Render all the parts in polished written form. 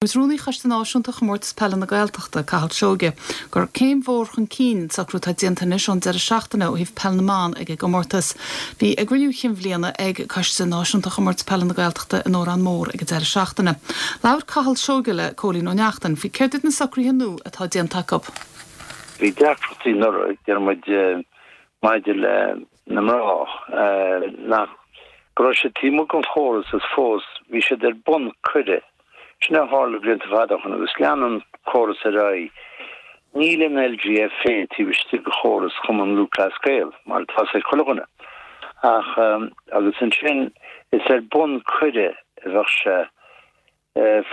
Dúirt Rúnaí Choiste Náisiúnta Chomórtas Peile na Gaeltachta, Cathal Seoige, gur céim mhór chun cinn an socrú atá déanta anois ón deireadh seachtaine ó thaobh peil na mban ag an gcomórtas. Bhí a gcruinniú chinn bhliana ag Coiste Náisiúnta Chomórtas Peile na Gaeltachta in Órán Mór ag an deireadh seachtaine. Labhair Cathal Seoige le Cóilín Ó Neachtain faoi céard iad na socruithe nua atá déanta acu. Bhí deacrachtaí anuraidh, deir muid, maidir le na mná, nach, go raibh siad taobh amuigh den chóras is fós bhí siad ar bun cuireadh. Sin a tharla blianta fada ó shin agus lean an córas ar aghaidh. Níl an LGFA taobh istigh de chóras Chumann Lúthchleas Gael, mar atá fhios ag chuile dhuine. Ach, agus ansin, is ar bun cuireadh a bheadh sé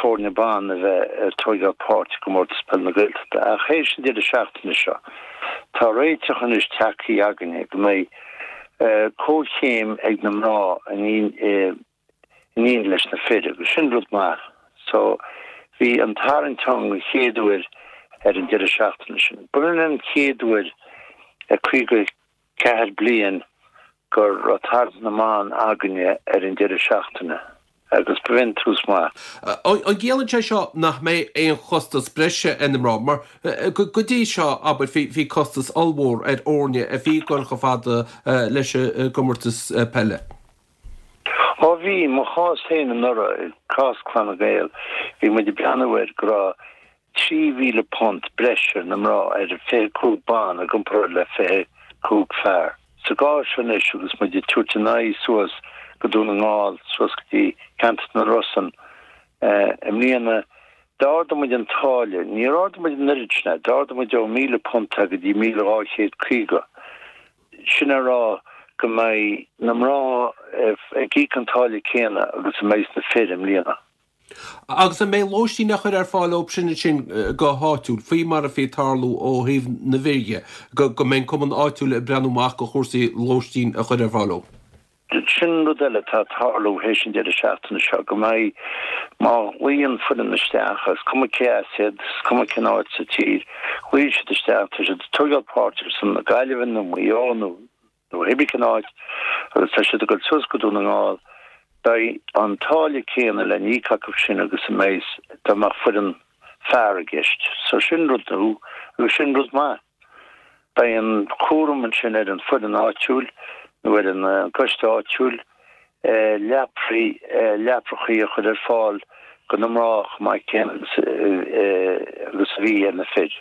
foirne ban a bheith ag tóigeáil páirt i gComórtas Peile na Gaeltachta. Ach théis an deireadh seachtaine seo, tá réiteach anois tagtha againne go mbeidh comhchéim ag na mná in éineacht leis na fir agus sin rud maith. So bhí an tarraingt ann an chéad uair ar an deireadh seachtaine sin. B'in an chéad uair i 54 bliain go raibh tarraingt na mban againne ar an deireadh seachtaine agus b'in tús maith. An gciallaíonn sé seo nach mbeidh aon chostas breise ar na mná? Mar go dtí seo, abair, bhí costas ollmhór ar fhoirne a bhí ag dul chomh fada leis an gcomórtas peile. Ó bhí, mo chás féin anuraidh, cás Clanna Gael, bhí muid ag breathnú air go raibh £3,000 breis ar na mná ar 25 ban i gcomparáid le 25 fear. Sa gcás seo anois agus muid ag tabhairt a n-aghaidh suas go Dún na nGall, suas go dtí ceantar na Rosann i mbliana, d'ardaigh muid an táille, níor ardaigh muid an oiread sin é, d'ardaigh muid ó £1,000 go dtí 1,250. Sin a rá go mbeidh na mná ag íoc an táille céanna agus a mbeidh na fir i mbliana. Agus an mbeidh lóistín á chur ar fáil dóibh sin ansin go háitiúil, faoi mar a bhí ag tarlú ó thaobh na bhfir dhe, go mbeidh an cumann áitiúil ag breathnú amach do chúrsaí lóistín a chur ar fáil dóibh? Sin rud eile atá ag tarlú théis an deireadh seachtaine seo, go mbeidh, má ghlaonn foireann isteach, is cuma cé as iad, is cuma cén áit sa tír, ghlaonn siad isteach, tá siad ag tóigeáil páirt ar son na Gaillimhe nó Maigh Eo nó hébrí cén áit agus tá siad ag dul suas go Dún na nGall, beidh an táille céanna le n-íoc acu sin agus a mbeidh dá mbeadh foireann fear i gceist. So sin rud nua agus sin rud maith. Beidh an cúram ansin ar an foireann áitiúil nó ar an gcoiste áitiúil leapraí, leaprachaí a chur ar fáil do na mná chomh maith céanna agus a bhí ar na fir.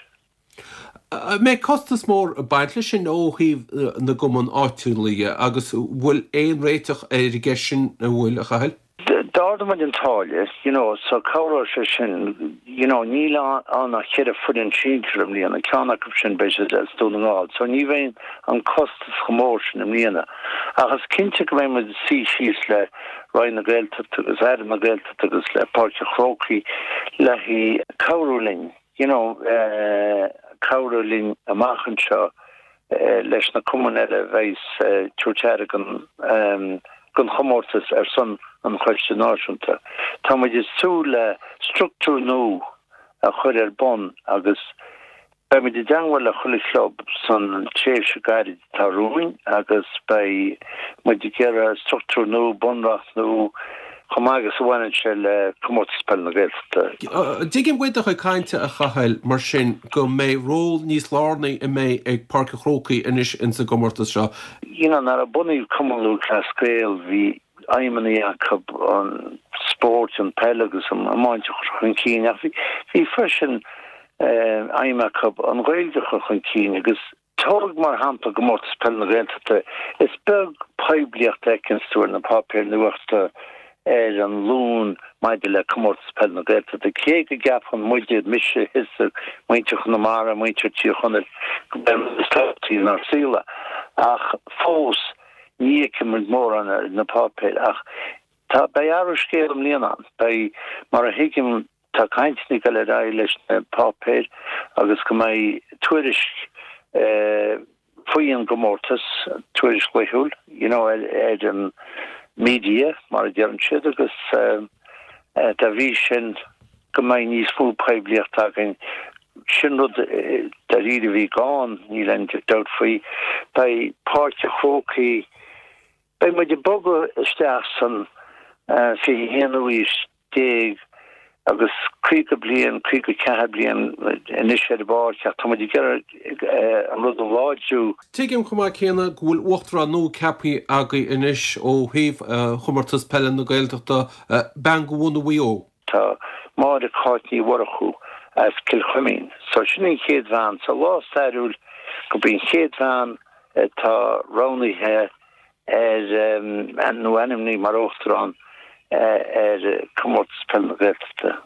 An mbeidh costas mór ag baint leis sin ó thaobh na gcumann áitiúla dhe agus bhfuil aon réiteach ar an gceist sin, an bhfuil, a Chathail? D'ardaigh muid an táille, you know, so cabhróidh sé sin, you know, níl ann ach cheithre foireann sinsir i mbliana, ceann acu sin beidh siad as Dún na nGall, so ní bheidh an costas chomh mór sin i mbliana. Ach is cinnte go mbeidh muid ag suí síos le Roinn na Gaeltachta agus Aire na Gaeltachta agus le Páirc an Chrócaigh le cabhrú linn, you know, cabhrú linn amach anseo leis na cumainn eile a bheidh ag tabhairt aire don chomórtas ar son an Choiste Náisiúnta. Tá muid ag súil le struchtúr nua a chur ar bun agus beidh muid i dteangmháil le chuile chlub san tréimhse gairid atá romhainn agus beidh muid ag iarraidh struchtúr nua, bunreacht nua, chomh maith agus a bhaineann sé le Comórtas Peile na Gaeltachta. Tuigim uait do chuid cainte, a Chathail, mar sin, go mbeidh ról níos lárnaí a mbeidh ag Páirc an Chrócaigh anois ins an gcomórtas seo. You know, nuair a bunaíodh Cumann Lúthchleas Gael, bhí aidhmeanna acu an spórt, an peil agus an iomáint a chur chun cinn ach bhí freisin aidhm acu an Ghaeilge a chur chun cinn agus Tóg mar shampla Comórtas Peile na Gaeltachta, is beag poiblíocht a fheiceanns tú ar na páipéir nuachta ar an Luan maidir le Comórtas Peile na Gaeltachta, cé go gceapann muide, mise, thusa, muintir Chonamara, muintir Tír Chonaill, go b'é an rud is tábhachtaí inár saol é. Ach fós, ní fheiceann muid mórán ar na páipéir. Ach tá, beidh athrú scéil i mbliana ann. Beidh, mar a thuigim, Tá cainteanna ag dul ar aghaidh leis na páipéir agus go mbeidh tuairisc faoi an gcomórtas, tuairisc laethúil, you know, ar an media, mar a deireann siad, agus dá bhrí sin go mbeidh níos mó poiblíochta againn. Sin rud dáiríre a bhí gann, níl aon dabht faoi. Beidh Páirc an Chrócaigh, beidh muid ag bogadh isteach san 21ú aois. Agus 50 bliain, 54 bliain anois ar an bpáirc ach tá muid ag iarraidh an rud a láidriú. Tuigim chomh maith céanna go bhfuil uachtarán nua ceaptha agaibh anois ó thaobh Chomórtas Peile na Gaeltachta, bean de bhunadh Mhaigh Eo. Tá Máire Cáit Ní Mhurchú as Cill Chuimín. So sin an chéad bhean. So lá stairiúil gurb í an chéad bhean atá roghnaithe ar, nó ainmnithe mar Uachtarán ar Comórtas Peile na Gaeltachta.